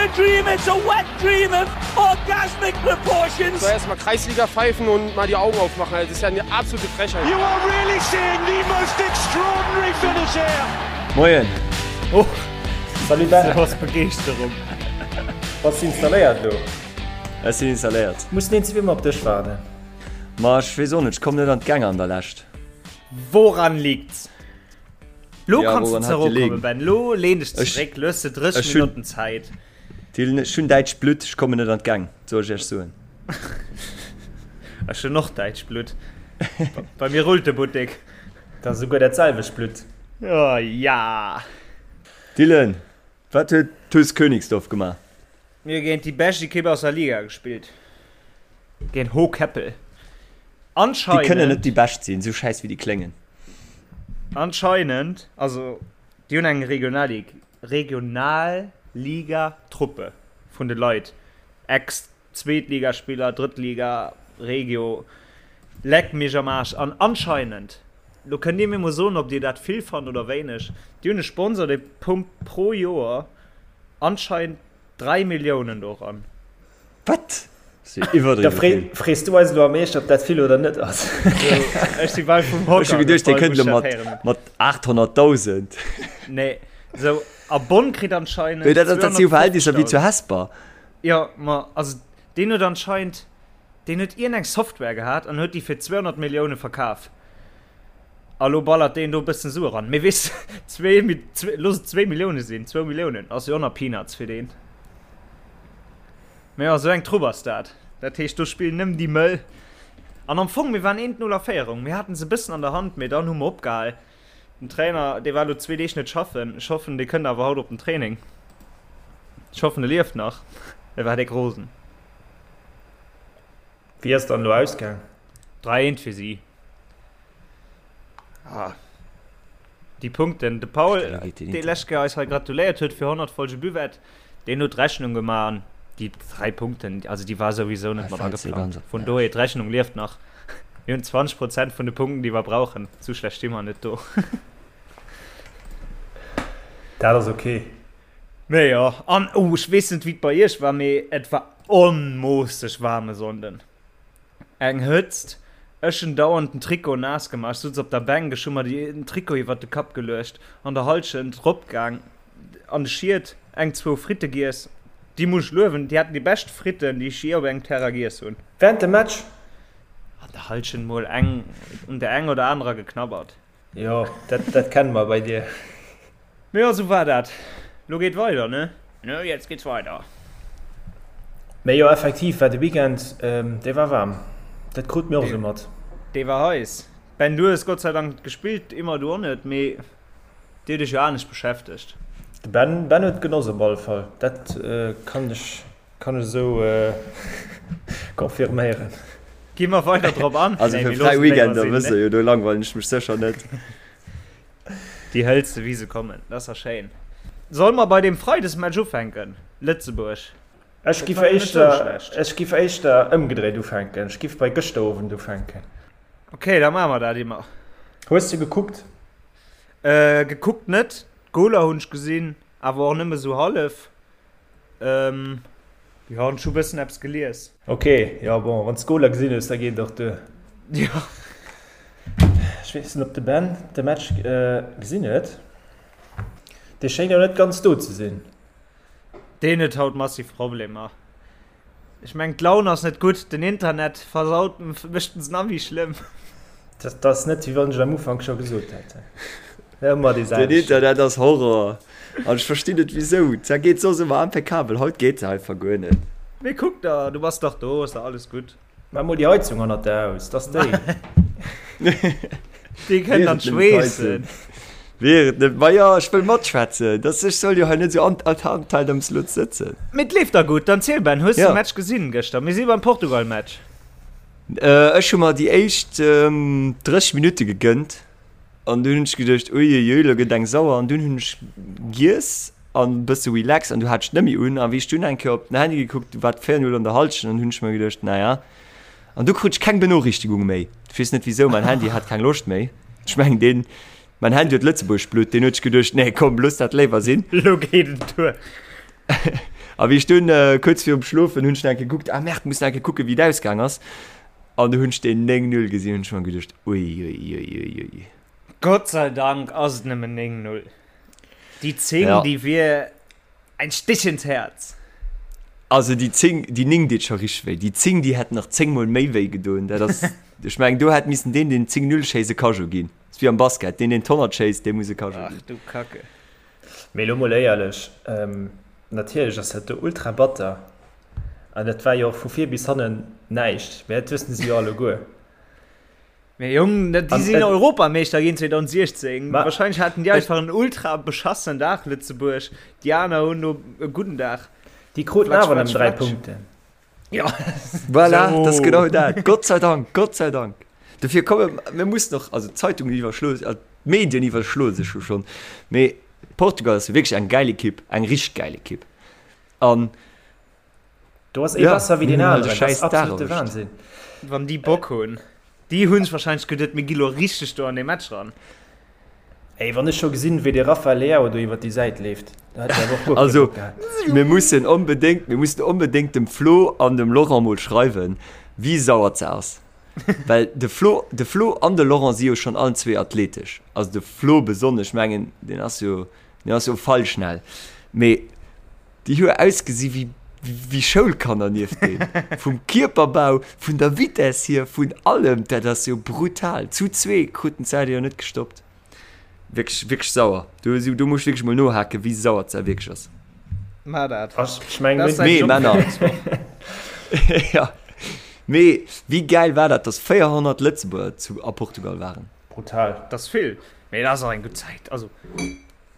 a dream, it's a wet dream of orgasmic proportions. So erstmal Kreisliga pfeifen und mal die Augen aufmachen. Das ist ja eine absolute Frechheit. You are really seeing the most extraordinary finish here. Moien. Oh, Salut Ben. Du hast Begeeschterung. Bass du installéiert lo? Ech sinn installéiert. Muss den zwee mol op dech waarden. Ma ech weess och net, ech komm net an d'Gäng an der Lescht. Woran liegt's? Lo Ja, kanns du woran hat zeréckkommen, gelegen? Ben. Lo lehn dech Ech- zeréck, lo hues de 30 ech hun- Minutten Zäit. Dylan, ech hunn däitscht Blutt, ech kommen net an d'Gäng, soll ech iech soen. Ech hunn och däitscht Blutt. Bei mir rullt de Buttek. Dat ass esouguer dat selwecht Blutt. Oh ja! Dylan, wat huet TuS Königsdorf gemaach? Mir hu géint déi bescht Ekipp aus der Liga gespillt. Géint Hohkeppel. Déi kënnen net Anscheinend. déi bescht sinn, esou schäiss wéi déi kléngen. Anscheinend, also déi hunn eng Regionallig Regionalliga-Truppe vun de Leit, Ex-Zweetligaspiller, Drëttliga, Regio, leck mech am Aarsch. An anscheinend, lo kënnt Dir mir mol soen, ob Dir dat vill fannt oder wéineg, déi hunn e Sponsor, dee pumpt pro Joer anscheinend 3 Milliounen do eran. Wat? Si iwwerdriwwe Da free, vill. frees du eis elo am Eescht, ob dat vill oder net ass. Ech si bal vum Hocker Ech hu geduecht, dee gefall, kënnt wou elo ech dat héieren mat, hunn. mat 800.000. Nee, sou, a Bonn kritt anscheinend Mee dat, dat si jo Verhältnisser wéi zu 250.000. Hesper. Jo, ma also deen huet anscheinend, deen huet iergendeng Software gehat an huet déi fir 200 Millioune verkaf. A lo ballert deen do e bëssen Sue ran. Mee weess de, zwee, zwee, looss et zwéi Millioune sinn, zwou Milliounen ass jo och nach Peanuts fir deen. Mee jo, sou eng Trupp ass dat. Dat heescht, do spillen nëmmen déi Mëll. An am Fong, mir waren 1, 0 a Féierung. Mir haten se e bëssen an der Hand, mee dann hu mer opgehal. Den Trainer, dee war elo zwee Deeg net schaffen. Ech hoffen, dee kënnt awer haut op den Training. Ech hoffen, e lieft nach. E war déck rosen. Wéi ass dann elo ausgaang? 3, 1 fir si. Ah. Déi Punkten. De Paul, dee lescht Kéier eis hei gratuléiert huet fir 100 Folge Buvette, deen huet d'Rechnung gemaach an déi 3 Punkten, also déi war souwisou net mat ageplangt. Vun dohier, d'Rechnung lieft nach. Mir hunn 20 Prozent vun de Punkten, déi mer brauchen. Sou schlecht sti mer net do. Dat ass ok. Mee jo, an oh, ech weess net wéi et bei iech war, mee et war onmoosseg waarm e Sonnden. Eng Hëtzt, ech hunn dauernd den Trikot naass gemaach, ech sutz op der Bänk, ech hu mer den Trikot iwwert de Kapp geluecht, an der Halschent rop gaang an de Schied, eng zwou Fritte giess, déi muss ech luewen, déi haten déi bescht Fritten déi ech jee op engem Terrain giess hunn. Während dem Match? An der Halschent mol eng un der eng oder anerer geknabbert. Jo, dat, dat kenne mer bei dir. Mee jo, sou war dat. Lo geet weider, ne? Ne, jetzt geht's weiter. Mee jo, effektiv war de Weekend, dee war waarm. Dat krute mir och esou mat. Dee war heiss. Ben, du hues Gott sei Dank gespillt, immer du och net, mee dir hutt iech jo anescht beschäftegt. De Ben, Ben huet genoss op alle Fall. Dat kann ech Kann ech esou confirméieren. Gi mer weider drop an? Also fir fräi Weekender wësst der jo, do langweilen ech mech sécher net. Déi hëls de wéi se kommen, dat ass da schéin. Solle mer bei deem Freidesmatch ufänken, Lëtzebuerg? Ech giff éischter, ech giff éischter ëmgedréit ufänken. Ech giff bei gëschter Owend ufänken. Ok, da maache mer dat immer. Hues de gekuckt? Gekuckt net, d'Goler hunn ech gesinn, awer och nëmme sou hallef. Ähm, jo, an ech hu bëssen eppes gelies. Ok, jo bon, wann s d'Goler gesinn hues, da geet et och duer. Jo. Ech weess net, ob de Ben de Match gesinn huet. Dee schéngt jo net ganz do ze sinn. Deen huet haut massiv Problemer. Ech mengen d'Laun ass net gutt, den Internet versaut mécht en se nach méi schlëmm. Dat ass net wéi wann ech et am Ufank scho gesot hätt. Ëmmer dee Den selwechten. Internet ass Horror an ech verstinn net wisou. Zwar geet soss ëmmer impeccabel, haut geet se einfach guer net. Mee kuck der, du bass dach do, ass dach alles gutt. Maach mol déi Heizung hannert der aus, dass déi. Déi kënnt an d'Schweessen. Wier et net, ma jo, ech wëll matschwätzen, dass ech soll jo hei net esou an an am Slot sëtzen. Mee et leeft da gutt. Dann ziel Ben, hues de de Match gesinn gëschter? Mir si beim Portugal-Match. Ech hu mer déi éischt 30 Minutte gegënnt an dunn hunn ech geduecht, uiuiui, lo gëtt eng sauer an dunn hunn ech giess an e bësse relax an du hat ech net méi un a wéi ech dunn eng Kéier op den Handy gekuckt, du war et 4, 0 an der Halschent an hunn ech mer geduecht, naja. An du krut ech keng Benoriichtigung méi. Ech weess net wisou, mäin Handy hat keng Loscht méi. Ech mengen deen, mäin Handy huet Lëtzebuerg Blutt, deen huet sech geduecht, nee komm, looss dat léiwer sinn. Lo geet et duer. A wéi ech dunn kuerz virum Schlofen hunn ech nach eng Kéier gekuckt, ah Merde, muss nach eng Kéier kucken, wéi et ausgaang ass. An du hunn ech deen 9, 0 gesinn, hunn ech mer geduecht, uiuiuiui. Gott sei Dank ass et nëmmen 9, 0. Déi 10, ja. déi wier ein Stich ins Herz. Also déi 10, déi 9 deet scho richteg wéi. Déi 10, déi hätt nach 10 mol méi wéi gedoen. Dat ass, ech mengen, do hätt missen deen, deen 10, 0 schéisst, e Cageot ginn. Ass wéi am Basket, deen, deen d'Honnert schéisst, dee muss e Cageot ginn. Ach du Kacke. Mee elo mol éierlech, natierlech ass dat do ultra batter an dat war jo och vu vir bis hannen näischt, mee dat wëssen se jo alleguer. Mee Jong, déi sinn Europameeschter ginn 2016, wahrscheinlech haten déi einfach en ultra beschassenen Dag, Lëtzebuerg, déi aner hunn do e gudden Dag. Déi kruten awer nëmmen 3 Punkten. Ja. Voilà, so. das ist genau dat. Gott sei Dank, Gott sei Dank. Dofir komme mir muss noch also Zeitungen iwwerschlo äh, Medien iwwerschlo sech jo schon. Mee Portugal ass wierklech eng geil Ekipp, eng richteg geil Ekipp. An Do ass ee ja, besser wéi den aneren. Dat ass absolute Wahnsinn. Wann déi Bock hunn. Déi hunn sech wahrscheinlech geduet, mir gi lo richteg do an dee Match ran. Ey, wann ech scho gesinn, wéi de Rafael Leao do iwwer déi Säit leeft, da hätt ech awer och guer kee Also, Bock gehat. mir mussen onbedéngt, mir mussen onbedéngt dem Flo an dem Laurent mol schreiwen, wéi sauer ze ass. Well de Flo, de Flo an de Laurent si jo schonn allen zwee athletesch. Also de Flo besonnesch, mengen, deen ass jo, deen ass jo feilschnell. Mee Déi hu ausgesi wéi wéi Schoulkanner nieft deem. Vum Kierperbau, vun der Vitess hier, vun allem, dat ass jo brutal. Zu zwee kruten d'Saudi jo net gestoppt. Wierklech, wierklech sauer. Do, do muss ech wierklech mol nohaken, wéi sauer d'Sau wierklech ass. Mar dat. Ech meng, Dat ass säin Mee Job fir Männer. nächst Woch. Ja. Mee wéi gäil war dat, dass 400 Lëtzebuerger zu a Portugal waren? Brutal. Dat ass vill, mee dat ass och eng gutt Zäit. Also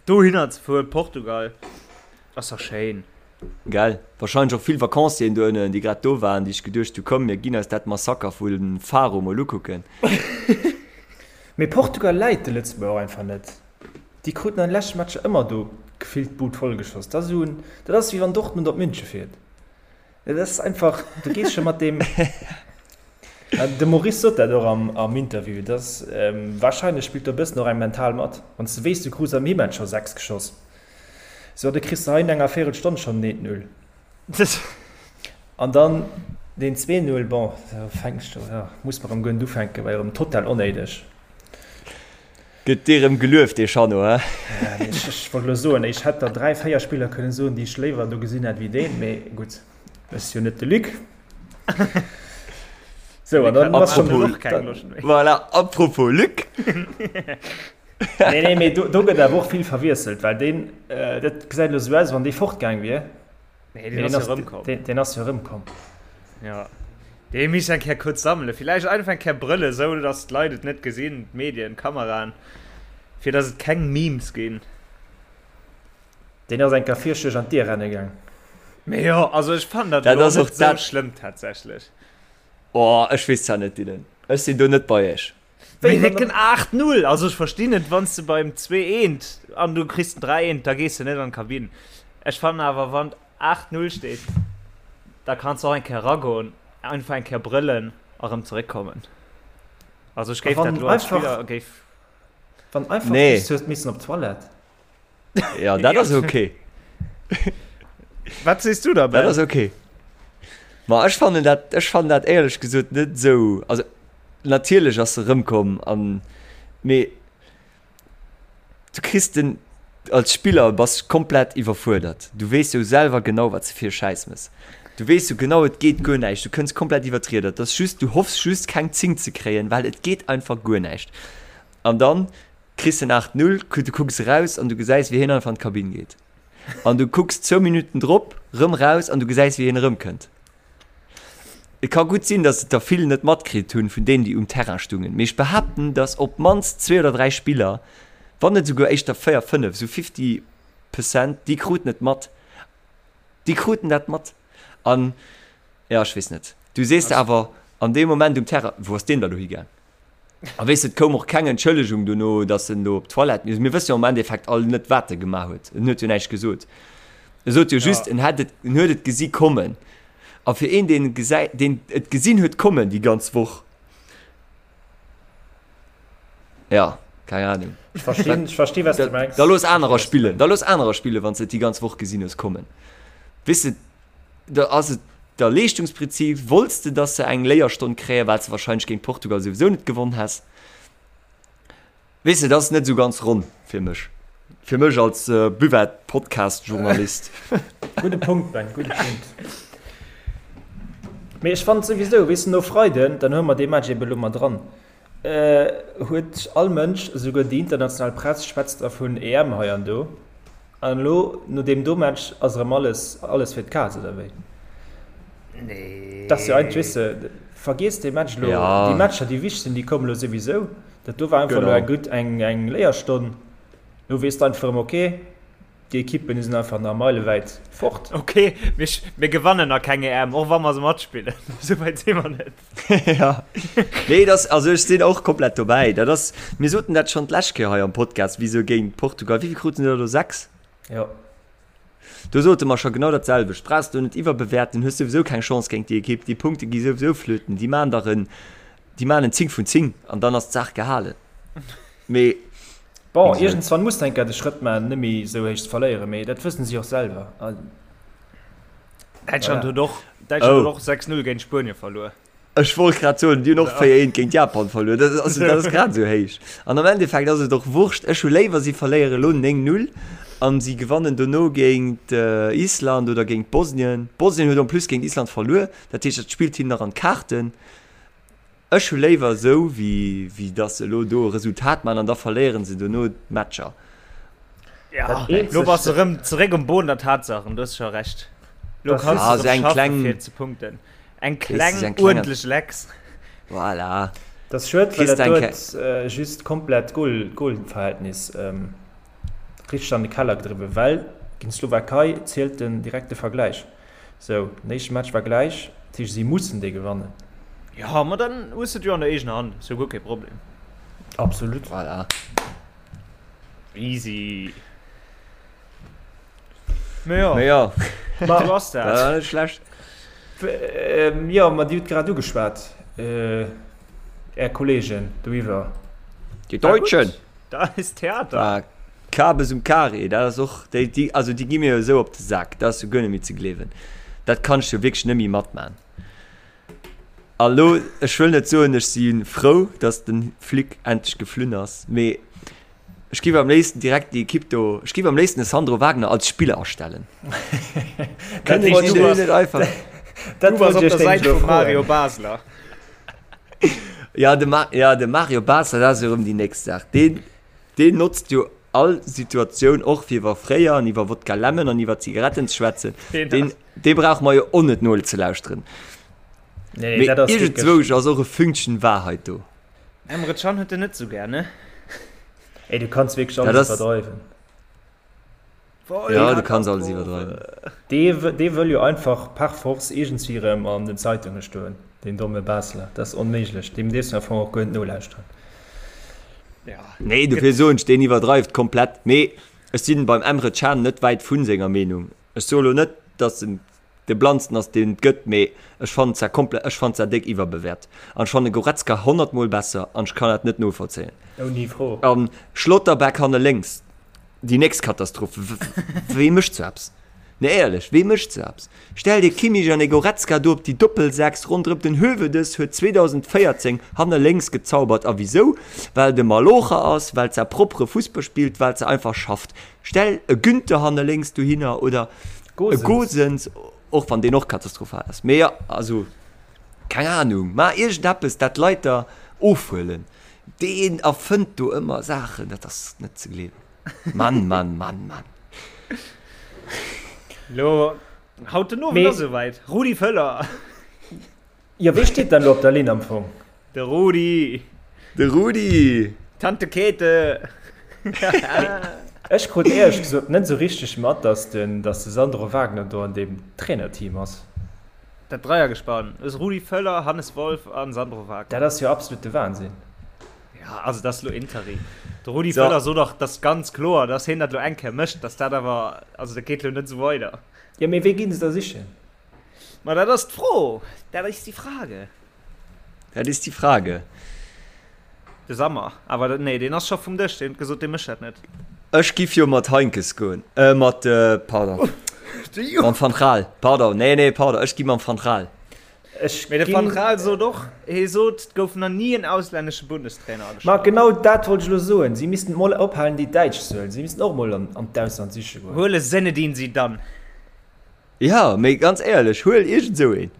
dohinner ze fueren, Portugal. Ass dach schéin. Gell? Wahrscheinlech och vill Vacancieren do ënnen, déi grad do waren, déi sech geduecht hu, komm mir ginn eis dat Massaker vu Faro mol ukucken. Mee Portugal läit de Lëtzebuerger och einfach net. Déi kruten an de leschte Matcher ëmmer do gefillt d'Bud vollgeschoss. Dat ass esou en, dat ass wéi wann Dortmund op Münche fiert. Dat ass einfach, du gees scho mat deem, de Maurice sot dat och am Interview, dass warscheinlech spillt do e bëssen och eng mental mat. Wann s de weess, du krus am Himatch scho 6 geschoss. Sou, da kriss de hei no enger Véirelstonn schonn den 1-0. An dann deen 2-0, bon, da fänks de, jo, muss mer erëm guer net ufänken, war jo erëm total onnéideg. Gëtt dee rëm gelueft, dee Chanot, he? Ech wollt elo soen, ech hätt der 3, 4 Spiller kënnen soen, déi ech léiwer do gesinn hätt wéi deen, mee gutt, ech si jo net de Luc. Sou, an dann ass schonn. Voilà, apropos Luc. Nee, nee, mee do, do gëtt awer och vill verwiesselt, well deen, äh, dat gesäit elo sou aus, wann dee fortgaang wier. Nee, deen ass jo erëmkomm. Deen, deen ass jo erëmkomm. Ja. Dee misst eng Kéier kuerz sammelen. Villäicht einfach eng Kéier brëllen, sou datt d'Leit et net gesinn, d'Medien, d'Kameraen, fir datt et keng Memes ginn. Deen ass eng Kéier virscheg an d'Dier renne gaang. Mee jo, also ech fannen dat Dat elo ass och net sou dat. schlëmm tatsächlech. Oh, ech weess zwar net, Dylan. Ech sinn do net bei iech. Wéi décken 8, 0! Also ech verstinn et, wann s de beim 2, eent an du kriss den 3, eent, da gees de net an d'Kabinn. Ech fannen awer, wann et 8, 0 steet, da kanns de och eng Kéier eragoen, einfach eng Kéier brëllen a rëm zeréckkommen. Also ech géif dat elo als Spiller géif. Wann einfach Nee. just hues missen op d'Toilette. Ja, dat ass okay. Wat sees du da, Dat Ben? ass okay. Ma ech fannen dat, ech fannen dat éierlech gesot net esou, also natierlech ass se erëmkomm an, mee du kriss den, als Spiller bass komplett iwwerfuerdert. Du weess jo selwer genau wat s de fir e Schäiss mëss. Du weess jo genau et geet guer näischt, du kënns komplett iwwer d'Rieder. Et ass just, du hoffs just keng 10 ze kréien, well et geet einfach guer näischt. An dann kriss en 8, 0, du kucks eraus an du gesäis wéi hien einfach an d'Kabinn geet. An du kucks zwou Minutten drop rëm raus an du gesäis wéi hien erëmkënnt. Et ka gutt sinn, datt et der vill net matkritt hunn vun deenen, déi um Terrain stungen, mee ech behaapten, datt op d'mannst zwee oder dräi Spiller, wann net esouguer éischter véier, fënnef, esou fifty percent, déi kruten et mat. Déi kruten dat mat. An, jo, ech weess net. Du sees der awer an deem Moment um Terrain, Wou ass deen da lo higaang? A weess de, et koum och keng Entschëllegung dono, datt en do op d'Toilette misst. Mir wësse jo am Endeffekt all net, wat e gemaach huet. En huet jo näischt gesot. E sot jo just, en hätt et, en huet et gesi kommen. A fir een, deen gesäit, deen et gesinn huet kommen déi ganz Woch, jo, keng Anung. Ech verstinn, ech verstinn, wat s du mengs. Da looss anerer spillen, da looss anerer spillen, wann s de et déi ganz Woch gesinn hues kommen. Weess de, da ass et der Leeschtungsprinzip, wollts de, dass se eng Léierstonn kréien, well s de wahrscheinlech géint Portugal souwisou net gewonn häss. Weess de, dat ass net esou ganz ronn fir mech. Fir mech als Buvette-Podcast-Journalist. Gudde Punkt, Ben, gudde Punkt. Mee ech fannen souwisou, weess de, no Freiden, dann hu mer dee Match ebe lo mat dran, huet all Mënsch, esouguer déi international Press schwätzt da vun EM hei an do. An elo no deem do Match ass erëm alles, alles fir d'Kaz, oder wéi? Nee. Dat ass jo eigentlech, weess de, vergiess dee Match elo. Ja. Déi Matcher, déi wichteg sinn, déi kommen elo souwisou. Dat do war einfach elo Genau. eng gutt, eng, eng Léierstonn. Elo weess de einfach erëm, okay, déi Ekippen, déi sinn einfach nach meilewäit fort. Okay, mir, mir gewannen nach keng EM, och wa mer se matspillen. Esou wäit si mer net. Ja. Nee, das, also ech sinn och komplett dobäi. Dat ass, mir soten dat schonn d'lescht Kéier hei am Podcast, wéi se géint Portugal, wéi vill kruten se da do? 6? Jo. Do sote mer scho genau dat selwecht. Brauchs du net iwwerbewäerten, hues souwisou keng Chance géint déi Ekipp, déi Punkte gi souwisou flöten, déi maan der en, déi maan en 10 vun 10 an dann ass d'Saach gehalen. Mee Bon, iergendswann muss de eng Kéier de Schrëtt maachen, net méi esou héich ze verléieren, mee dat wëssen si och selwer. Däitschland huet och, Däitschland huet och 6-0 géint Spuenie verluer. Ech wollt grad soen, déi hunn och 4-1 géint Japan verluer. Dat ass, dat ass grad esou héich. An am Endeffekt ass et och Wurscht. Ech hu léiwer, si verléiere elo 9-0 an si gewannen dono géint Island oder géint Bosnien. Bosnien huet en plus géint Island verluer, dat heescht, dat spillt hinnen nach an d'Kaarten. Ech hu léiwer esou, wéi, wéi dass se elo do e Resultat maachen an da verléiere se dono d'Matcher. Ja, lo bass de rëm zeréck um Boden der Tatsachen, du hues scho Recht. Lo kanns Ah, du so rëm eng schaffen, kleng- fir ze punkten. Eng Weess du, kleng, eng kleng- uerdentlech Lecks. Voilà. Dat ass schued, well Kriss dat de eng do Ke- huet äh, just komplett d'Goal, d'Goalverhältnis ähm, richteg an de Keller gedriwwen, well géint d'Slowakei zielt den direkte Vergläich. Sou, den éischte Match war gläich, dat heescht si mussen dee gewannen. Jo, ma dann hues de et jo an der eegener Hand, ass jo guer kee Problem. Absolut. Voilà. Easy. Mee jo, Mee jo, sou ass dat dat. war net schlecht. Jo, ma Dir hutt grad ugeschwat, Är Kollegen doiwwer. Die Deutschen! Da ist Theater. Ah, Kabes um Carré, dat ass och, déi, déi, also déi gi mir jo esou op de Sak, dat ass jo guer net méi ze gleewen. Dat kanns du jo wierklech net méi matman. A lo, ech wëll net soen, ech si frou, datt de Flick endlech geflunn ass, mee ech géif am léifsten direkt déi Ekipp do, ech géif am léifsten de Sandro Wagner als Spiller astellen. Kënnen wollt si du deen bass- net einfach? Dat Du bass wollt op ech der iech Säit nämlech elo vum Mario froen. Basler. Ja, de, Ma ja, de Mario Basler, dat ass jo erëm déi nächst Saach. Deen, deen notzt jo all Situatioun och fir iwwer fréier an iwwer Wodka Lemon an iwwer Zigaretten ze schwätzen. Deen Deen, ass. dee brauche mer jo och net nozelauschteren. Nee, Mee dat ass wierklech. iergendzwousch ass och e Fünkchen Wahrheit do. Emre Can huet en net sou gär, ne? Ey, du kanns wierklech Dat alles ass. iwwerdreiwen. Ja, du kanns alles iwwerdreiwen. Dee, dee wëll jo einfach par force iergendswéi erëm an den Zeitunge stoen, deen domme Basler. Dat ass onméiglech. Deem dierfs de am Fong och guer net nolauschteren. Ja. Nee, dofir soen ech, deen iwwerdreift komplett. Mee ech sinn beim Emre Can net wäit vu senger Meenung. Ech soe lo net, datt en de blannsten ass, deen et gëtt, mee ech fannen zwar komplett, ech fannen zwar déck iwwerbewäert. An ech fanne Goretzka honnertmol besser an ech kann dat net novollzéien. Ouni Fro. An Schlotterbeck hanne lénks, Déi nächst Katastroph. Wee mécht sou eppes? Nee éierlech, wee mécht sou eppes? Stell dir Kimmich an e Goretzka do op déi Doppelsechs ronderëm. Den Höwedes huet 2014 hanne lénks gezaubert. A wisou? Well de Malocher ass, well se propere Fussball spillt, well se einfach schafft. Stell e Günter hanne lénks dohinner oder e Gosens, och wann deen och katastrophal ass. Mee jo, also keng Ahnung, maach iergendeppes, dat d'Leit der ofhuelen. Deen erfënnt do ëmmer Saachen, dat ass net ze gleewen. Mann, Mann, Mann, Mann. Lo, haut den Owend ass esouwäit. Rudi Völler. Jo, wee steet dann elo op der Linn am Fong? De Rudi. De Rudi. Tante Käthe. Ech krut éierlech gesot net esou richteg mat, dass den, dass de Sandro Wagner do an deem Trainerteam ass. Dat Dreiergespann aus Rudi Völler, Hannes Wolf a Sandro Wagner. Dat ass jo absolute Wahnsinn. Ja, also dat ass lo Interim. De Rudi so. Völler sot och, dat ganz kloer, dass hien dat lo eng Kéier mécht, dass dat awer, also dat geet lo net esou weider. Jo, mee wee ginn se da sichen? Ma dat ass d'Fro, dat ist die Frage. Dat ist die Frage. De Sammer, awer nee, deen ass scho vum Dësch, deen huet gesot, dee mécht dat net. Ech giff jo mat Heinkes goen, äh mat, pardon. Mam Van Gaal, pardon, nee, nee, pardon, ech gi mam Van Gaal. Ech Mee de Van ginn. Gaal sot och, hee sot, et gouf nach ni en auslännesche Bundestrainer Ma agestallt. genau dat wollt ech elo soen, si missten mol ophalen déi Däitsch ze huelen, si missten och mol an an d'Ausland siche goen. Huele Zinedine Zidane. Ja, mee ganz éierlech, huel iergend esou een.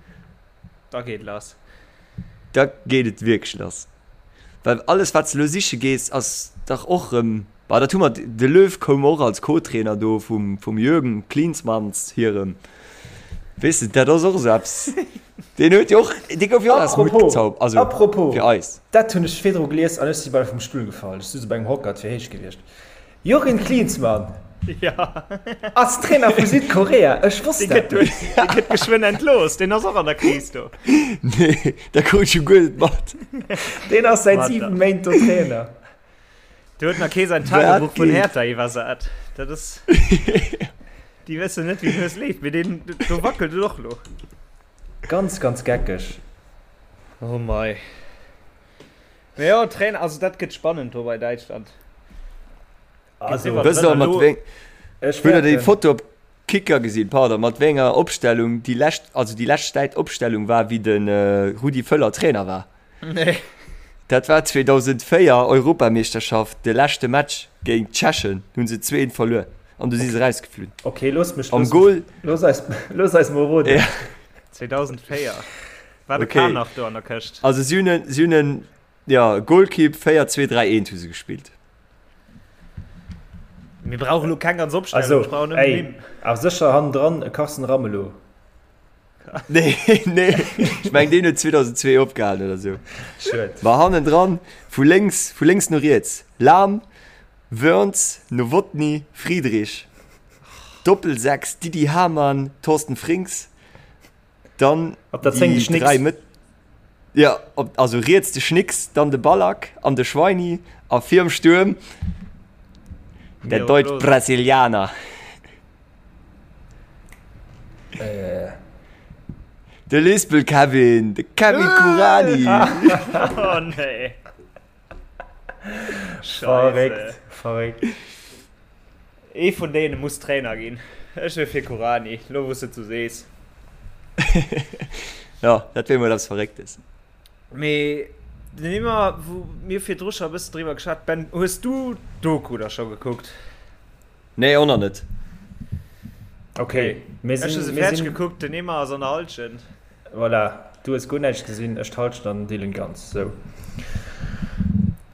Da geet lass. Da geet et wierklech lass. Well alles wat s de elo siche gees, ass dach och erëm, bah dat hu mer, de Löw koum och als Co-Trainer do vum vum Jürgen Klinsmanns hirem, weess de, dat ass och esou eppes, deen huet jo och, dee gouf jo och aus dem Hutt Apropos, gezaubert, also apropos, fir eis. dat hunn ech virdru gelies an ech si bal vum Stull gefall, ech souz op engem Hocker, et wier héich gewiescht. Jürgen Klinsmann ass Trainer vu Südkorea, ech wosst dat net. Dee gëtt geschwënn entlooss, deen ass och an der Kris do. Nee, dat krut ech jo guer net mat. Deen ass säit 7 Méint do Trainer. Do huet nach kee säin Tagebuch vun Hertha iwwersat. Dat ass, déi wëssen net wéi den Hues leeft, mee deen do wackelt et och lo. Ganz, ganz geckeg. Oh mei. Mee jo, Trainer, also dat gëtt spannend do bei Däitschland. Also, Wësst der mat wéi ech Hutt der déi fäerten. Foto op Kicker gesinn, pardon, mat wéi enger Opstellung déi lescht, also déi lescht Zäit Opstellung war wéi de Rudi Völler Trainer war? Nee. Dat war 2004 Europameeschterschaft, de leschte Match géint d'Tschechen, hunn se 2, 1 verluer an du si se rausgeflunn. Okay, looss mech, Am looss mech, Goal, looss eis, looss eis mol roden. ja. 2004 war de Okay. Kahn nach do an der Këscht. Also si hunn en, si hunn en, ja, Golkipp 4, 2, 3, 1 hu se gespillt. Mir brauchen lo keng ganz Opstellung, Also, ech brauch nëmmen ey, Nimm. awer sécher hannendran e Carsten Ramelow. Nee, nee, ech meng deen huet 2002 opgehalen oder sou. Schued. Ma hannendran, vu lénks, vu lénks no riets, Lahm, Wörns, Nowotny, Friedrich, Doppelsechs, Didi Hamann, Thorsten Frings, Dann Op der 10 de déi Schnicks. 3 Mëtt ja, op, also riets de Schnicks, dann de Ballack an de Schweini a virum Stuerm der Miro Deutsch Klose. Brasilianer. Äh. De Lispel Kevin, de Kevin Kuranyi. Oh nee. Verréckt, verréckt. Ee vun deene muss Trainer ginn. Ech wier fir Kuranyi, lo wou s de et sou sees. Jo, dat wier mol eppes Verrécktes. Mee den Immer, wou mir virdru scho e bëssen driwwer geschwat, Ben, hues du d'Doku da scho gekuckt? Nee, och nach net. Okay, mir Ech hu sinn, se mir fäerdeg sinn, gekuckt, den Immer ass an der Hallschent. voilà, du hues guer näischt gesinn, ech d'Hallschent an den Dylan ganz, sou.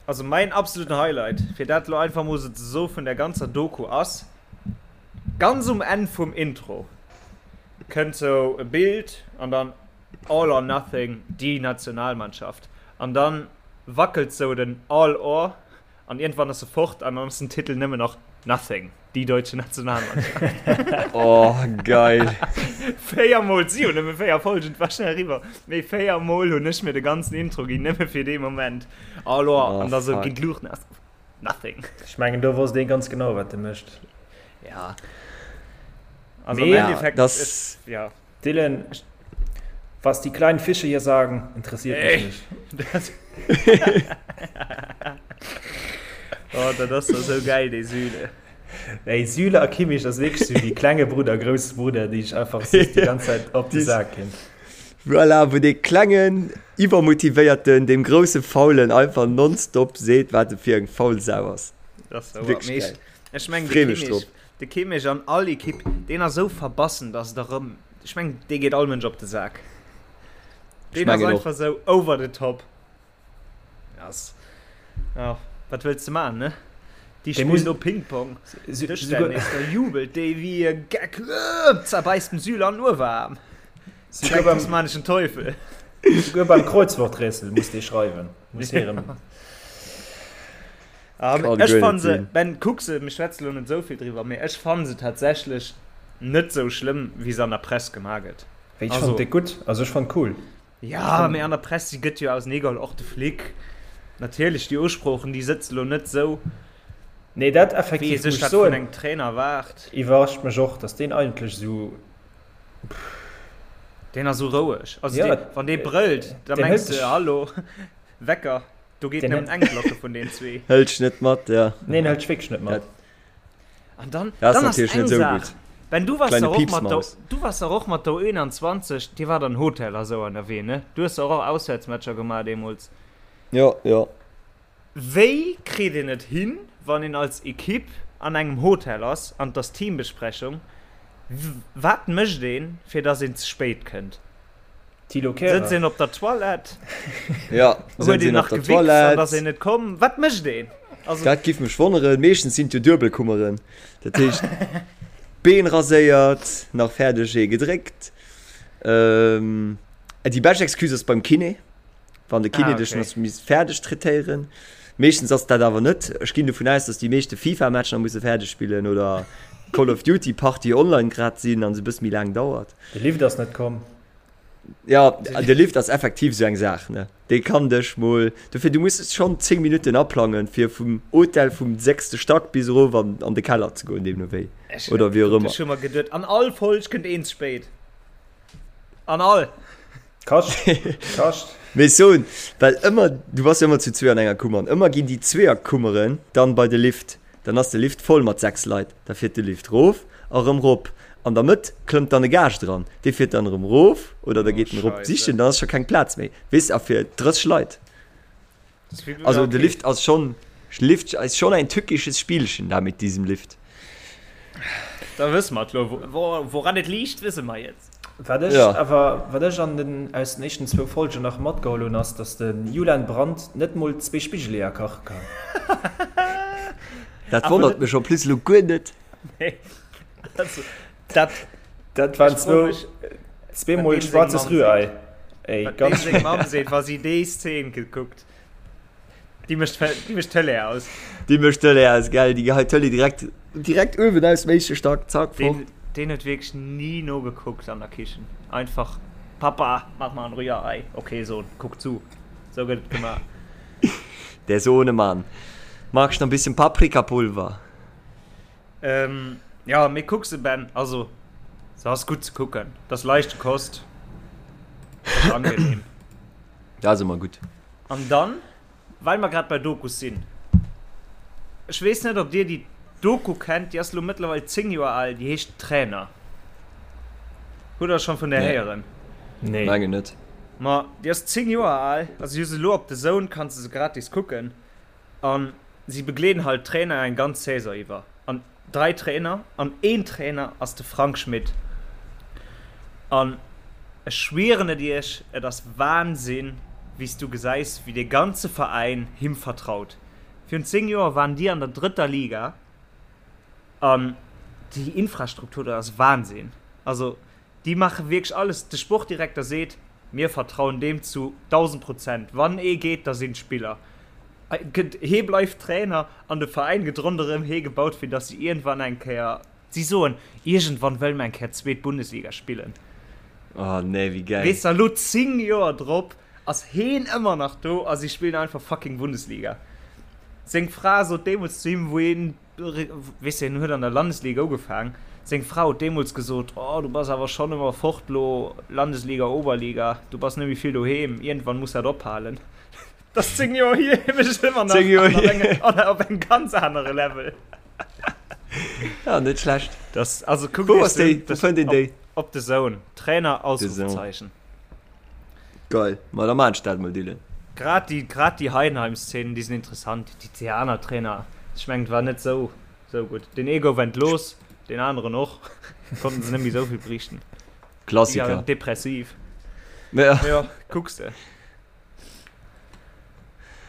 Also mäin absoluten Highlight, fir dat lo einfach mol sou ze soe vun der ganzer Doku ass, ganz um Enn vum Intro kënnt sou e Bild an dann All or Nothing, die Nationalmannschaft an dann wackelt sou den All or An iergendwann ass se fort an dann ass den Titel nëmmen nach Nothing, die deutsche Nationalmannschaft. Oh, geil. Véiermol, si hunn nëmme véier Folgen, et war schnell eriwwer, mee véiermol hunn ech mir de ganzen Intro ginn, nëmme fir dee Moment. Alors, Oh, an da sou fuck. ginn d'Luuchten aus, Nothing. Ech mengen, do wosst ee ganz genau, wat e mécht. Ja. Also am Mee- Ja, Endeffekt, das, ech, ja. Dylan, was die kleinen Fische hier sagen, interessiert mich Ey. nicht. Das oh, dat ass doch sou geil, dee Süle. Ey, Süle a Kimmich ass wierklech sou wéi klenge Brudder, grousse Brudder, déi sech einfach soss déi ganz Zäit op de Sak ginn. Voilà, wou dee klengen, iwwermotivéierten deem grousse Faulen einfach nonstop seet, wat e fir eng faul Sau ass. Das ist Wierklech Mee geil. ech, ech meng, de Free mech Kimmich, drop. de Kimmich an all Ekipp, deen ass sou verbassen, dass et erëm, ech meng, dee geet all Mënsch op de Sak. Deen ass mengen och. einfach sou over the top. Ass, ja, wat wëlls de man, ne? Déi Dee spillen muss- do Ping-Pong, Sou- Dëschtennis, souguer- da jubelt dee wéi e Geck, äh, zerbäisst dem Süle an den Uewerarm. Souguer Direkt beim, tasmanischen Teufel. souguer beim Kreuzworträtsel muss dee schreiwen. Muss hie erëm. Ah, Kann ech guer fann net se, sinn. Ben, kuck se, mir schwätze lo net esou vill driwwer, mee ech fann se tatsächlech net sou schlëmm, wéi se an der Press gemaach gëtt. Ech Also- fand déi gutt, also ech fand cool. Ja, mee an der Press, si gëtt jo auseneegeholl, och de Flick. Natierlech, déi Usproochen, déi sëtze lo net sou, Nee, dat wéi ee effektiv sech muss ech dat vun soen, engem Trainer erwaart. iwwerrascht mech och, dass deen eigentlech sou, Deen ass sou roueg. Also Ja, dee, wann dee brëllt, da deen mengs hëlt de, sech- hallo, Wecker. Do geet Den nëmmen eng Glocke vun den zwee. Hëlt net mat, ja. Nee, hëlt wierklech net mat. An dann, Dat ass dann ass natierlech eng net sou Saach. gutt. Ben, du wars dach och mat der, du wars dach och mat der U21, dir waart an Hotel a sou ënnerwee, ne? Du hues dach och Auswäertsmatcher gemaach deemools. Jo, jo. Wéi kritt een et hin, wann een als Ekipp an engem Hotel ass an et ass Teambesprechung, wat mécht een, fir dass een ze spéit kënnt? Thilo Kehrer. Sëtzt een op der Toilette? Ja, Huet een nach gewichst an ass een net komm? Wat mécht een? Also, dat giff mech wonneren. Meeschtens sinn et jo Duebelkummeren. Dat heescht, Been raséiert, nach fäerdeg ee gedréckt. Ähm, déi bescht Excuse ass beim Kiné, wann de Kiné ah, okay. dech nach misst fäerdeg traitéieren. Meeschtens ass dat awer net. Ech ginn dovun aus, dass déi meeschte FIFA-Match nach musse fäerdeg spillen oder Call of Duty Party online grad sinn an se bësse méi laang dauert. De Lift ass net komm. Ja, de Lift ass effektiv esou eng Saach, ne? Dee kann dech mol. Dofir, du muss schonn 10 Minutten aplangen, fir vum Hotel vum sechste Stack bis erof an, an de Keller ze goen, deemno wéi. Ech, Oder wéi och ëmmer. Ech hu mer geduet, an all Folg kënnt een ze spéit. An all. Kascht. Kascht. Mee ech soen, well ëmmer, du bass jo ëmmer zu zwee an enger Kummer, an ëmmer ginn déi Zweeërkummeren dann bei de Lift. Dann ass de Lift voll mat 6 Leit. Da fiert de Lift rof a rëm rop. An der Mëtt klëmmt dann e Gaascht eran. Dee fiert dann erëm rof oder da geet en erop sichen. Dann ass scho keng Plaz méi. Weess a fir 30 Leit. Also de Lift ass schonn, Lift ist schon ein tückisches Spielchen da mit diesem Lift. Da wësse mer et lo. Woran et liegt, wësse mer jetzt. Wat ech awer, wat ech an den, aus den éischten zwou Folgen nach matgeholl hunn, ass, dass de Julian Brandt net mol zwee Spigeleeër kache kann. Dat wonnert mech en plus elo guer net. Nee, also dat. Dat waren zwou, zweemol schwarzes Rührei. Ey, ganz. Wat deem seng Mamm seet, wa si déi Szene gekuckt. Déi mécht déi mécht d'Tëlee aus. Déi mécht d'Tëlee aus, gell? Déi geheit d'Tëlee direkt, direkt uewen aus dem éischte Stack, zack, fort. Deen, deen huet wierklech ni nogekuckt an der Kichen. Einfach, Papa, mach mal ein Rührei. Okay, Sohn, kuck zu. Sou gëtt et gemaach. Der Sohnemann. Magst noch ein bisschen Paprikapulver? Ähm, ja, mee kuck se, Ben. Also, se ass gutt ze kucken. Dat ass leichte Kost. Dat ass angenehm. Dat ass ëmmer gutt. An dann, well mer grad bei Dokus sinn, ech weess net, ob Dir déi Doku kennt, déi ass elo mëttlerweil 10 Joer al, déi heescht Trainer. Hutt Der schonn vun där héieren? Nee. Mengen net. Ma déi ass 10 Joer al, also just elo op DAZN kanns de se gratis kucken. An si begleeden halt d'Trainer eng ganz Saison iwwer. An 3 Trainer, an een Trainer ass de Frank Schmidt. An ech schwieren et iech, et ass Wahnsinn, wéi s du gesäis, wéi dee ganze Veräin him vertraut. Virun 10 Joer waren déi an der drëtter Liga an déi Infrastruktur do ass Wahnsinn. Also Déi maache wierklech alles. De Sportdirekter seet, Mir vertrauen deem zu 1.000 Prozent. Wann ee geet, da sinn d'Spiller. Hee bleift Trainer an de Veräin gëtt ronderëm hee gebaut, fir datt si iergendwann eng Kéier, si soen, iergendwann wëlle mer eng Kéier zweet Bundesliga spillen. Oh nee, wéi gäil. Weess de, elo 10 Joer drop ass heen ëmmer nach do a si spillen einfach fucking Bundesliga. Seng Fra sot deemools zu him, wou hien Weess de, hien huet an der Landesliga ugefaang. Seng Fra huet deemools gesot, Oh, du bass awer schonn ëmmer fort lo, Landesliga, Oberliga, du bass net méi vill doheem, iergendwann muss dat ophalen. Dat ass 10 Joer hier, hie mécht et ëmmer nach 10 Joer an op hier. engem, an op engem ganz anere Level. Ja, net schlecht. Das, also kuckt Wou iech ass déi? se un, Wou das, fënnt een op, déi? op DAZN. Trainer, DAZN. Ausrufezeichen. Geil, ma da maan ech dat mol Dylan. Grad déi, grad déi Heidenheim-Szenen, déi sinn interessant. Déi déi aner Trainer, ech mengen, et war net sou, sou gutt. Deen ee gouf entlooss, deen aneren och. Konnten se net méi sou vill berichten. Déi Klassiker. waren depressiv. Ja. Jo, kucks de.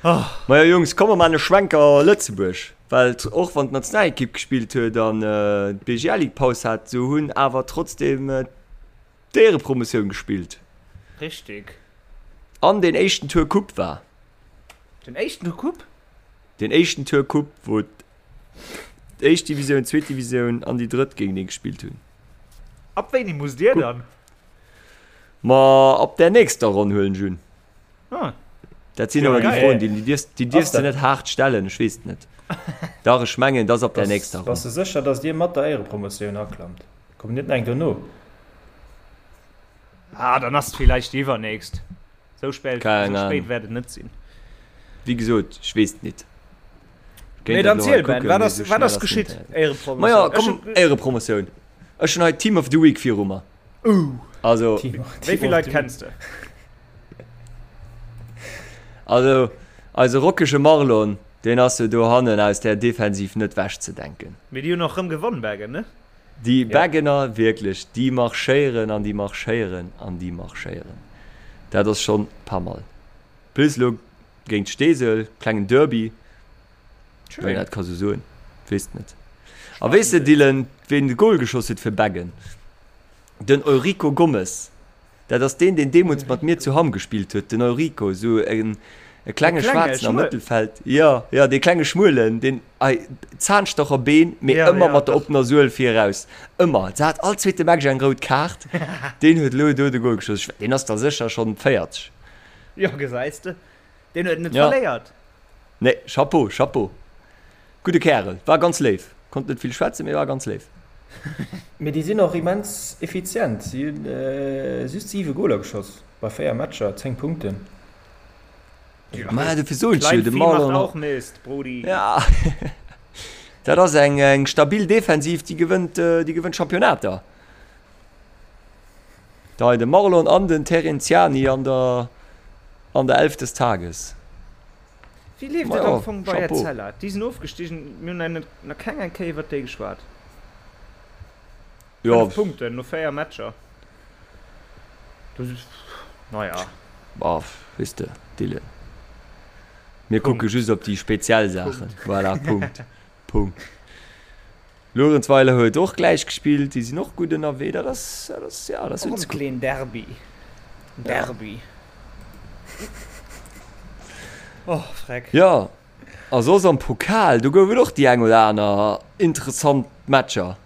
Oh. Majo Jungs, komm mer maan e Schwenker Lëtzebuerg, well och wann d'Nationalekipp gespillt huet an d'BGL-Ligue Paus hat, sou hunn awer trotzdem d'Éierepromotioun gespillt. Richtig. An deen éischten Tour Coupe war. Den éischten Tour Coupe? Den éischten Tour Coupe, wou d'éischt Divisioun, d'zweet Divisioun an déi drëtt géintenee gespillt hunn. Ab wéini musst Dir dann? Ma ab där nächster Ronn huelen ech un. Ah. Dat sinn awer déi Froen, déi dierfs, déi dierfs de net haart stellen. Ech weess et net. Dach, ech mengen, et ass ab där nächster Ronn. Bass de sécher, datt Dir mat der Éierepromotioun aklammt? Kommt net nach eng dono? Ah, dann ass et villäicht déi iwwernächst. Sou spéit, Keng sou spéit Ahnung. wäert et net sinn. Wéi gesot, ech weess et nit. Mee Kéint dat dann elo hei ziel, Ben, kucken, wat mee ass, sou wat schnell ass ass geschitt? den Internet. Éierepromotioun. Majo, Ech komm, hunn. Éierepromotioun. Ech hunn hei Team of the Week viru mer. Uh. Also, Wéi vill Leit kenns de? Also, eise rockege Marlon, deen ass jo dohannen aus där Defensiv net wechzedenken. Mee déi hunn och rëm gewonn, Beggen, ne? Déi Beggener, wierklech, déi marschéieren an déi marschéieren an déi marschéieren. Dat ass schonn pas mal. Plus elo géint Steesel, klengen Derby, wann een dat ka sou soen, weess net. A weess de, Dylan, ween de Gol geschoss huet fir Beggen? Den Eurico Gomes. Dat ass deen, deen deemools mat mir zu Hamm gespillt huet, den Eurico, esou en e klenge Schwaarzen am Mëttelfeld. Jo, jo, dee klenge Schmuelen, deen hei Zahnstocherbeen, mee ëmmer mat der oppener Suel viraus. Ëmmer. Se hat all zweete Match eng rout Kaart. Deen huet elo do de Gol geschoss. Ech, deen ass da sécher schonn 40. Jo, gesäis de, deen huet net verléiert. Nee, Chapeau, Chapeau. Gudde Kärel, war ganz léif. Konnt net vill schwätzen, mee war ganz léif. Mee déi sinn och immens effizient. Si hunn just 7 Goler geschoss bei 4 Matcher, 10 Punkten. Ma dofir soen ech jo, de Marlon. Och Mist, Brudi. Ja. Dat ass eng eng stabil Defensiv, déi gewënnt, déi gewënnt Championnater. Da de Marlon an den Terenziani an der an der Elf des Tages. Wéi leeft et am Fong bei Etzella? Déi sinn ofgestigen, mir hunn nach keng eng Kéier iwwert déi geschwat. 5 Punkten no 4 Matcher. Naja. Bah, weess de, Dylan. Mir kucke just op déi speziell Saachen. Voilà, Punkt. Punkt. Luerenzweiler huet och gläich gespillt, déi sinn och gutt ënnerwee. Dat ass, dat ass, ja, dat ass Och e kleen Derby. Derby. Oh, freck. Jo, a soss am Pokal, do gouf et och déi eng oder aner interessant Matcher.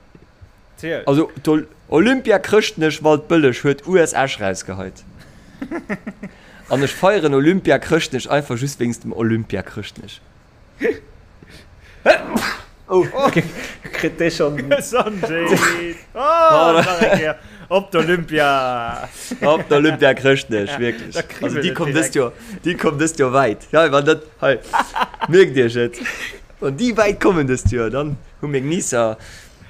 Ziel. Also d'Olympia Chrëschtnech Waldbëlleg huet US Esch rausgeheit. An ech feieren Olympia Chrëschtnech einfach just wéinst dem Olympia Chrëschtnech. Oh, kritt dee schon. Gesondheet! Oh, nach eng Kéier. Op d'Olympia! Op d'Olympia Chrëschtnech, wierklech. Da kribbelt Also déi et komm dëst direkt. Joer, déi komm dëst Joer wäit. Ja, wann dat, hei, mierkt iech et. Wann déi wäit kommen dëst Joer, dann hu meng Nicer,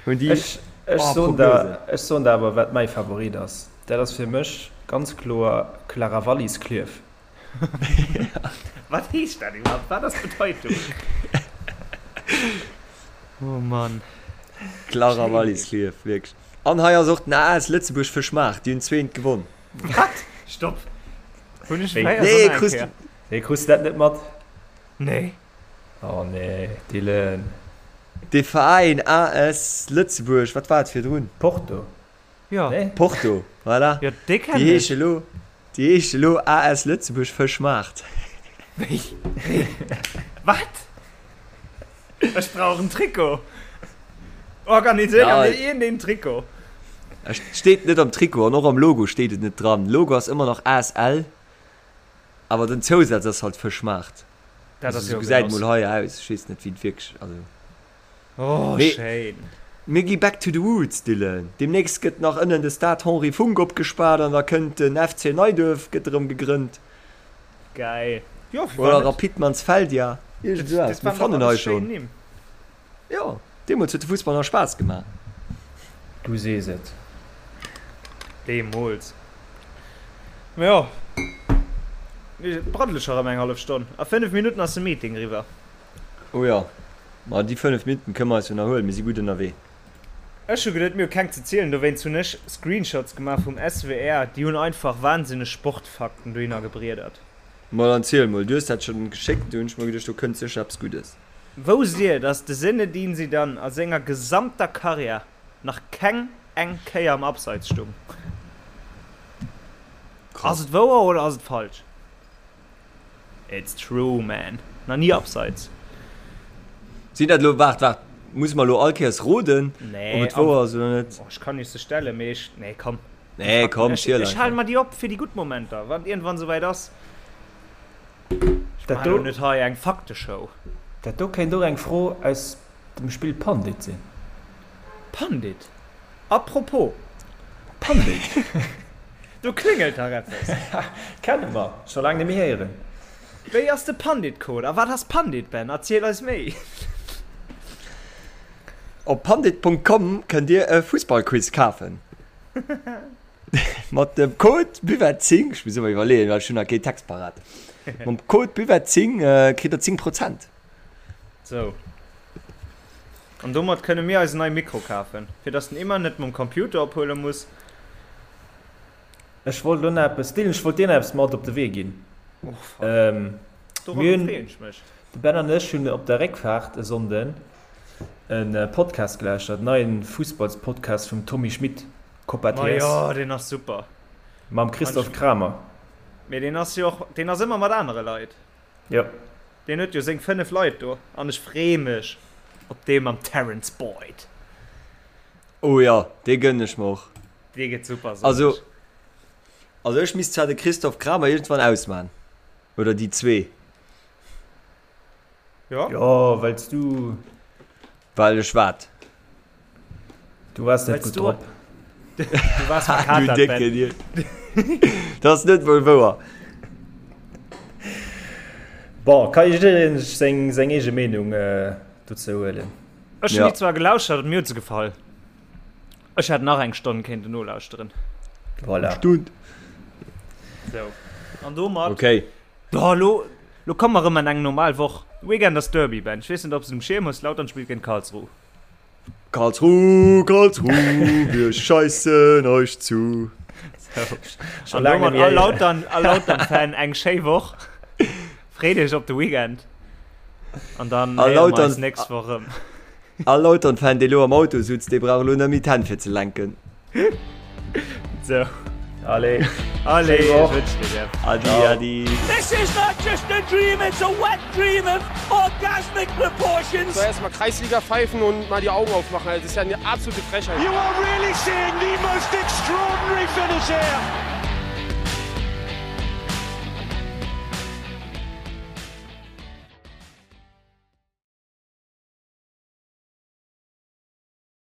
hunn déi, Ech, ech oh, soen der, Prognosen. ech soen der awer, wat mäi Favorit ass. Dat ass fir mech ganz kloer Clara Wallis Klierf. Wat heescht dat iwwerhaapt? Wat ass d'Bedeitung? Oh Mann. Clara Wallis Klierf, wierklech. An hei ass och den AS Lëtzebuerg Fëschmaart, déi hunn zweent gewonn. Wat? Stopp! Hunn ech Wéi? fréier Nee, soen eng krus Kéier? Nee, krus de dat net mat? Nee. Oh nee, Dylan. De Veräin AS Lëtzebuerg, wat war et virdrun? Porto. Jo. Nee? Porto, voilà. Jo, dee kennen Déi ech. heesche lo, déi heesche lo AS Lëtzebuerg Fëschmaart. Wéi? Wéi? Wat? Ech brauch en Trikot. Organiséier Ja. mir iergendeen Trikot. Et steet net am Trikot an och am Logo steet et net dran. Logo ass ëmmer nach ASL, awer den Zousaz ass halt Fëschmaart. Dat Also ass sou jo gesäit Genoss. mol hei aus. Ech weess net wéi et wierklech, also. Oh, Mee schéin. mir gi back to the roots, Dylan. Deemnächst gëtt nach ënnen de Stade Henri Funck opgespaart an da kënnt den FC Neiduerf, gëtt erëm gegrënnt. Geil. Jo, firwat Oder net? Rapid Mansfeldia, iergend esou Dat eppes. Mir waren dach fannen hei alles schéin schonn. Nimm. Jo, deemools huet de Fussball nach Spaass gemaach. Du sees et. Deemools. Mä jo, et braddele scho rëm eng hallef Stonn. A 5 Minutten ass de Meeting eriwwer. Oh jo, ma déi 5 Minutten kënne mer eis jo nach huelen, mir si gutt ënnerwee. Ech hu geduet mir hu keng ze zielen, dowéinst hunn ech Screenshots gemaach vum SWR, déi hunn einfach wahnsinneg Sportfakten dohinner gebriedert. Ma dann ziel mol, du hues dat schonn geschéckt, do hunn ech mer geduecht, do kënnt sécher eppes Guddes. Wousst dir, dass de Zinedine Zidane a senger gesamter Karriär nach keng eng Kéier am Abseits stung? Ass Krass. et wouer oder ass et falsch? It's true man, nach ni abseits. Sinn dat elo, waart, waart, musse mer elo all Kéiers roden, ob Nee, et wouer ass oder net? Oh, ech kann iech se stellen, mee ech, nee komm. Nee, komm, ziel Ech halen einfach. mer déi op fir déi gutt Momenter, wann et iergendwann souwäit ass. Ech Dat maachen elo do, net hei eng Fakteshow. dat do kéint och eng Fro aus dem Spill Pandit sinn. Pandit? Apropos Pandit! Do kléngelt dach eppes. Kenne mer, scho laang net méi héieren. Wéi ass de Pandit-Code a wat ass Pandit, Ben? Erziel eis méi! Op pandit.com kënnt Dir e Fussballquiz kafen. Mat dem Code Buvette10, ech muss ëmmer iwwerleeën, well ech hunn nach keen Text parat. Mam Code Buvette10 kritt der 10 Prozent. Sou. An domat kënne mir eis en neie Mikro kafen, fir dass den Emma net mam Computer ophuele muss. Ech wollt elo nach eppes, Dylan, ech wollt dir nach eppes mat op de Wee ginn. Oh fuck. Dorobber freeën ech mech. De Ben an ech hunn op der Réckfaart e Sonnden e Podcast gelauschtert, en neien Fussballspodcast vum Tommy Schmitt, Copa Ma TS. jo, deen ass super. Mam Christoph Kramer. Mee deen ass jo och, deen ass ëmmer mat anere Leit. Jo. Deen huet jo seng 5 Leit do an ech free mech op dee mam Terence Boyd. Oh jo, dee gënnen ech mer och. Dee gëtt super, soen Also, ech. also ech misst zwar de Christoph Kramer iergendwann ausman. Oder déi zwee. Jo. Jo, wells du. Well ech wat? Du waars net gutt drop. Du waars verkatert, Du décke Dier. Dat ass net mol wouer. Bon, ka jiddereen seng seng eege Meenung dozou huelen. Ech hunn déi zwar gelauschtert an mir huet se gefall. Ech hätt nach eng Stonn kéinten nolauschteren. Voilà. Stund. Sou, an domat. Okay. Oh, lo, lo komme mer erëm an eng normal Woch. Weekend ass Derby, Ben. Ech weess net, ob s de et um Schierm hues. Lautern spillt géint Karlsruhe. Karlsruhe, Karlsruhe, wir scheissen euch zu. Sou, an domat all Lautern, all Lautern-Fan eng schéi Woch. Freet iech op de Weekend. An dann héiere mer eis nächst Woch erëm. All Lautern-Fan, dee lo am Auto sutz, dee brauch elo net méi d'Hänn fir ze lenken. Sou. Allez. Allez, ech wënschen dir dat. Adi, adi. This is not just a dream, it's a wet dream of orgasmic proportions. So erstmal Kreisliga pfeifen und mal die Augen aufmachen, das ist ja eine absolute Frechheit. You are really seeing the most extraordinary finish here.